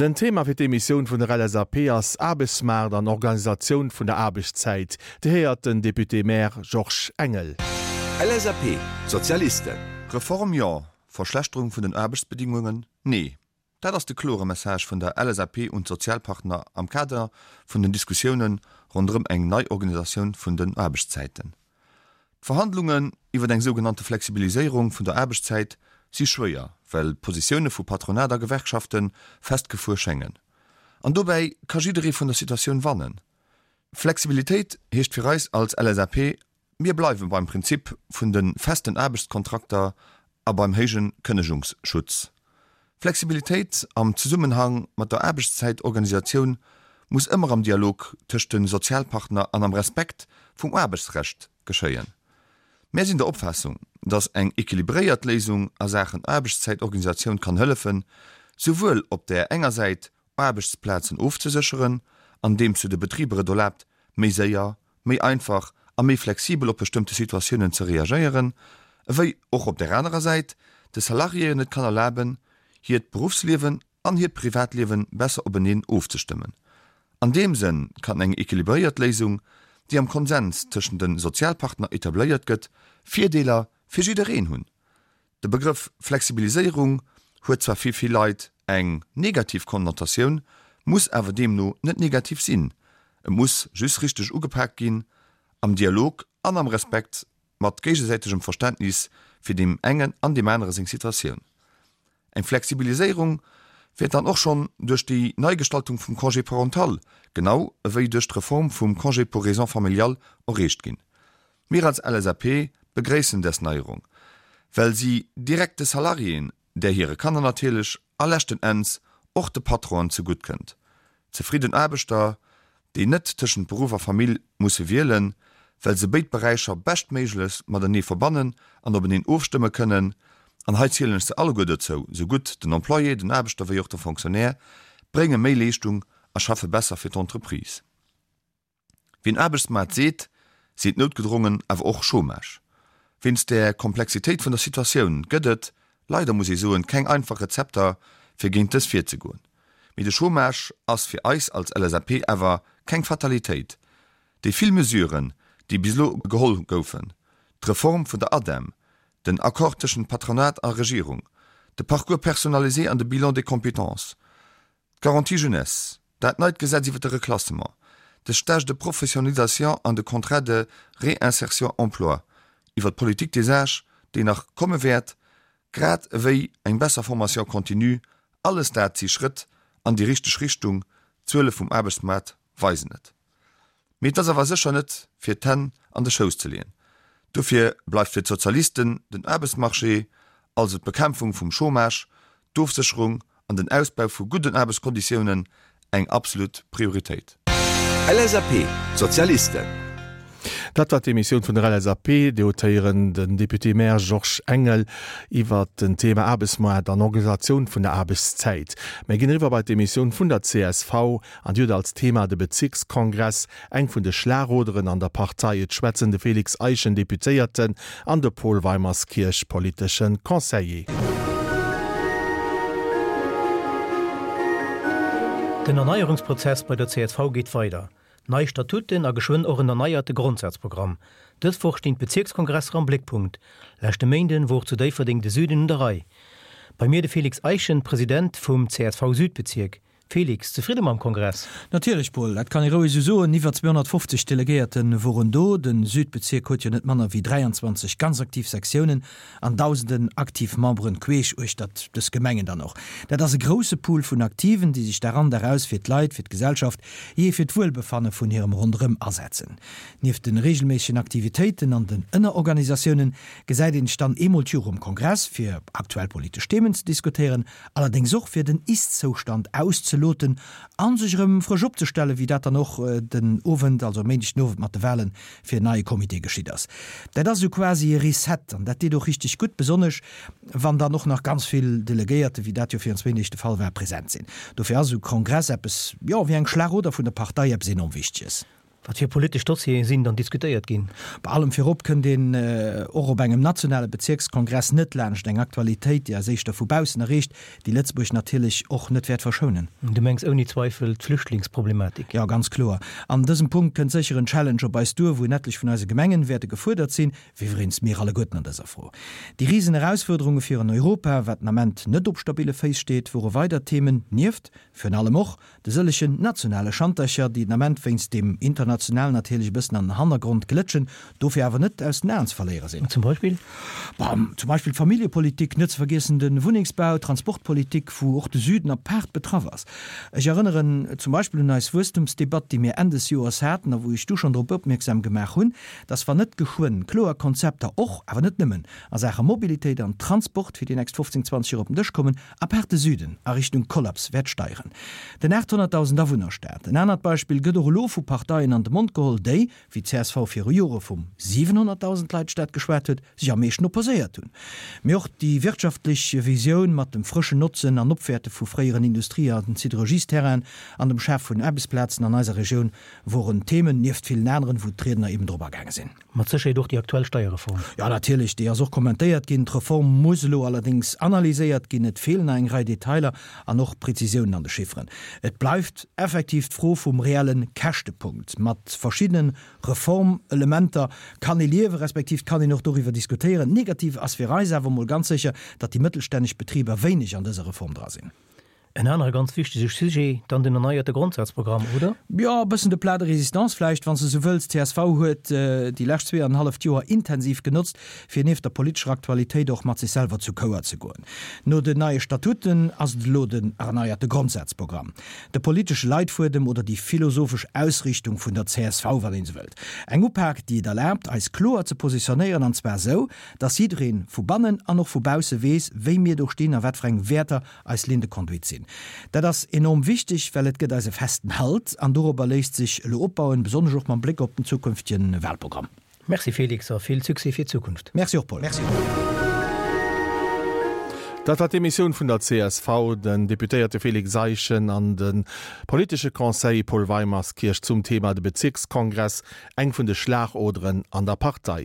Den Thema fir d'Emissioun vun der LSAP ass Aarbechtsmaart an Organisatioun vun der Aarbechtszäit. Dir héiert den Député-Maire Georges Engel. LSAP, Sozialisten. Reform jo, Verschlechterung vun den Aarbechtsbedingungen nee. Dat ass de klore Message vun der LSAP un d'Sozialpartner am Kader vun den Diskussioune ronderëm eng nei Organisatioun vun den Aarbechtszäiten. D'Verhandlungen iwwer eng sougenannte Flexibiliséierung vun der Aarbechtszäit si schwéier, well d'Positioune vu Patronat a Gewerkschafte festgefuer schéngen. An dobäi ka jidderee vun der Situatioun wannen. Flexibilitéit heescht fir eis als LSAP, Mir bleiwe beim Prinzip vun de festen Aarbechtskontrakter a beim héije Kënnegungsschutz. Flexibilitéit am Zesummenhang mat der Aarbechtszäitorganisatioun muss ëmmer am Dialog tëscht de Sozialpartner an am Respekt vum Aarbechtsrecht geschéien. Mär sinn der Opfaassung, datt eng equilibréiert Léisung a Saachen Aarbechtszäitorganisatioun kann hëllefen, souwuel op där enger Säit Aarbechtsplazen ofzesécheren, andeems se de Betriber et erlaabt, méi séier, méi einfach a méi flexibel op bestëmmte Situatiounen ze reagéieren, ewéi och op där anerer Säit de Salariéen et kann erlaben, hiert Beruffsliewen an hiert Privatliewe besser openeen ofzestëmmen. An deem Sënn kann eng equilibréiert Léisung, déi am Konsens tëschent de Sozialpartner etabléiert gëtt, Virdeeler fir jiddereen hunn. De Begrëff Flexibiliséierung huet zwar fir vill Leit eng negativ Konnotatioun, muss awer deemno net negativ sinn. Et muss just richteg ugepaakt ginn, am Dialog an am Respekt, mat géigesäitegem Verständnis fir deem engen an deem anere seng Situatioun. Eng Flexibiliséierung wäert dann och schonn duerch déi Neigestaltung vum Congé parental, genau ewéi duerch d'Reform vum Congé pour raisons familiales erreecht ginn. Mir als LSAP begréissen des Neierung, well si direkt de Salariéen, där hire Kanner natierlech a leschten Enns och de Patronen zegutt kënnt. Zefridden Aarbechter, déi net tëschent Beruff a Famill musse wielen, well se béid Beräicher beschtméiglechst matenee verbannen an openeen ofstëmme kënnen, an hei zielen ech se alleguer dozou, sou gutt den Employé, den Aarbechter wéi och de Fonctionnaire, brénge méi Leeschtung a schaffe besser fir d'Entreprise. Wien Aarbechtsmaart seet, seet noutgedrongen awer och Chômage. Wéinst der Komplexitéit vun der Situatioun gëtt et, leider muss ee soen, keng einfach Rezepter fir géint dës virzegoen. Mee de Chômage ass fir eis als LSAP awer keng Fatalitéit. Déi vill Mesuren, déi bis elo geholl goufen, d'Reform vun der ADEM, den Accord tëschent Patronat a Regierung, de Parcours personnalisé an de Bilan des compétences, D'Garantie jeunesse, dat neit Gesetz iwwer de Reklassement, de Stage de professionnalisation an de Contrat de réinsertion emploi, iwwer d'Politique des âges, déi nach komme wäert, grad ewéi eng besser Formation continue, alles dat si Schrëtt an déi richteg Richtung, d'Zuele vum Aarbechtsmaart weisen et. Mee et ass awer sécher net fir d'Hänn an de Schouss ze leeën. Dofir bleift fir d'Sozialisten den Aarbechtsmarché, also d'Bekämpfung vum Chômage, d'Ofsécherung an den Ausbau vu gudden Aarbechtskonditiounen eng absolut Prioritéit. LSAP, D'Sozialisten. Dat war d'Emissioun vun der LSAP. Dir hutt héieren den Député-Maire Georges Engel iwwert den Thema Aarbechtsmaart an Organisatioun vun der Aarbechtszäit. Mir ginn eriwwer bei d'Emissioun vun der csv. An déi huet als Thema de Bezierkskongress, eng vun de Schlagoderen an der Partei. Et schwätzen de Félix Eischen, Deputéierten, an de Paul Weimerskirch, politesche Conseiller. Den Erneierungsprozess bei der csv geet weider. Nei Statuten a geschwënn och en erneierte Grondsazprogramm. Dës Woch stinn d'Bezierkskongresser am Bléckpunkt. Leschte Méinden wor zu Déifferdeng de Süden un der Rei. Bei mir de Félix Eischen, President vum CSV-Südbezierk. Félix, zefridde mam Kongress? Natierlech, Paul, dat kann ee roueg esou soen. Iwwer 250 Delegéierte woren do. De Südbezierk huet jo net manner wéi 23 ganz aktiv Sektiounen an dausenden aktiv Memberen queesch uechtert dës Gemengen dann och. Dat ass e grousse Pool vun Aktiven, déi sech Dag an Dag aus fir d'Leit, fir d'Gesellschaft, jee fir d'Wuelbefanne vun hirem Ronderëm asetzen. Nieft de reegelméissegen Aktivitéiten an den Ënnerorganisatiounen gesäit een sech dann eemol d'Joer um Kongress, fir aktuell politesch Themen ze diskutéieren, Allerdéngs och fir den Ist-Zoustand auszeloten a sech erëm frësch opzestellen, wéi dat dann och den Owend, also e Méindeg den Owend mat de Wahlen fir en neie Comité geschitt ass. Dat ass esou quasi e Reset an dat deet och richteg gutt, besonnesch wann dann och nach ganz vill Delegéierte, wéi dat jo virun zwéin Deeg de Fall war, present sinn. Dofir ass esou e Kongress eppes, jo, wéi eng Schlagoder vun der Partei, eppes enorm Wichteges. Wat fir politesch Dossiere sinn dann diskutéiert ginn? Bei allem virop kënnt een och op engem nationale Bezierkskongress net laanscht eng Aktualitéit, déi eis éischter vu baussen erreecht, déi Lëtzebuerg natierlech och net wäert verschounen. Du mengs ouni Zweifel d'Flüchtlingsproblematik? Jo, ganz kloer. An dësem Punkt kënnt sécher en Challenge op eis duer, wou en etlech vun eise Gemengen wäerte gefuerdert sinn, wéi iwwereens mir alleguerten an dëser Fro. Déi risen Erausfuerderunge fir en Europa, wat den Ament net op stabille Féiss steet, wore weider Themen, nieft virun allem och De sëllegen nationale Schantercher, déi den Ament wéinst deem internationalen natierlech e bëssen an den Hannergrond glëtschen, dofir awer net aus den Aen ze verléiere sinn. Zum Beispill? Bon, zum Beispill d'Familljepolitik, net ze vergiessen de Wunnengsbau, d'Transportpolitik, wou och de Süden apaart betraff ass. Ech erënneren zum Beispill un eis Wuesstumsdebatt, déi mir Enn des Joers haten a wou ech du schonn drop opmierksam gemaach hunn, dass wann net geschwënn kloer Konzepter och, awer net nëmmen, a Saache Mobilitéit an Transport fir déi nächst 15, 20 Joer op den Dësch kommen, Apaart de Süden a Richtung Kollaps wäert steieren. Den 800.000 Awunnerstaat, en anert Beispill, gëtt och elo vu Parteien an de Mond geholl, déi, wéi d'CSV viru Jore vum 700.000 Leit Staat geschwat huet, sech am meeschten opposéiert hunn. Mee och déi wirtschaftlech Visioun mat dem frëschen Notzen an Opwäerte vu fréieren Industrie an Siderurgiesterrainen an dem Schaf vun Aarbechtsplazen an eiser Regioun woren Themen, nieft villen aneren, wou d'Riedner eben drop agaange sinn. Mat Sécherheet och déi aktuell Steierreform. Jo, natierlech, déi ass och kommentéiert ginn. D'Reform muss elo allerdéngs analyséiert ginn. Et feelen nach eng Rei Detailer an och Prezisiounen an de Chifferen. Et bleift effektiv d'Fro vum reelle Käschtepunkt. Mat verschiddene Reformelementer kann ee liewen, respektiv et kann een och doriwwer diskutéieren. Negativ ass fir eis awer emol ganz sécher, datt déi mëttelstänneg Betriber wéineg an dëser Reform dra sinn. En anere ganz wichtege Sujet, dann den erneierte Grondsazprogramm, oder? Jo, e bëssen de Plat de résistance vläicht, wann s de esou wëlls. Csv huet déi lescht zweeanenhalleft Joer intensiv genotzt, fir nieft der politescher Aktualitéit och mat sech selwer zu Chouer ze goen. No den neie Statuten ass et elo den erneierte Grondsazprogramm, de politesche Leitfuedem oder déi philosophesch Ausrichtung vun der csv, wann een esou wëllt. Eng Upak, déi et erlaabt, eis kloer ze positionéieren, an zwar esou, dass jidderee vu bannen an och vu bausse weess, wéi mir do stinn a wat fir eng Wäerter eis Ligne de conduite sinn. Dat ass enorm wichteg, well et gëtt eis e festen Halt an dorobber léisst sech elo opbauen, besonnesch och mam Bléck op den zukünftegen Wahlprogramm. Merci Félix a vill Succès fir d'Zukunft. Merci och Paul. Dat war d'Emissioun vun der csv, den Deputéierte Félix Eischen an de politesche Conseiller Paul Weimerskirch zum Thema de Bezirkskongress, eng vun de Schlagoderen an der Partei.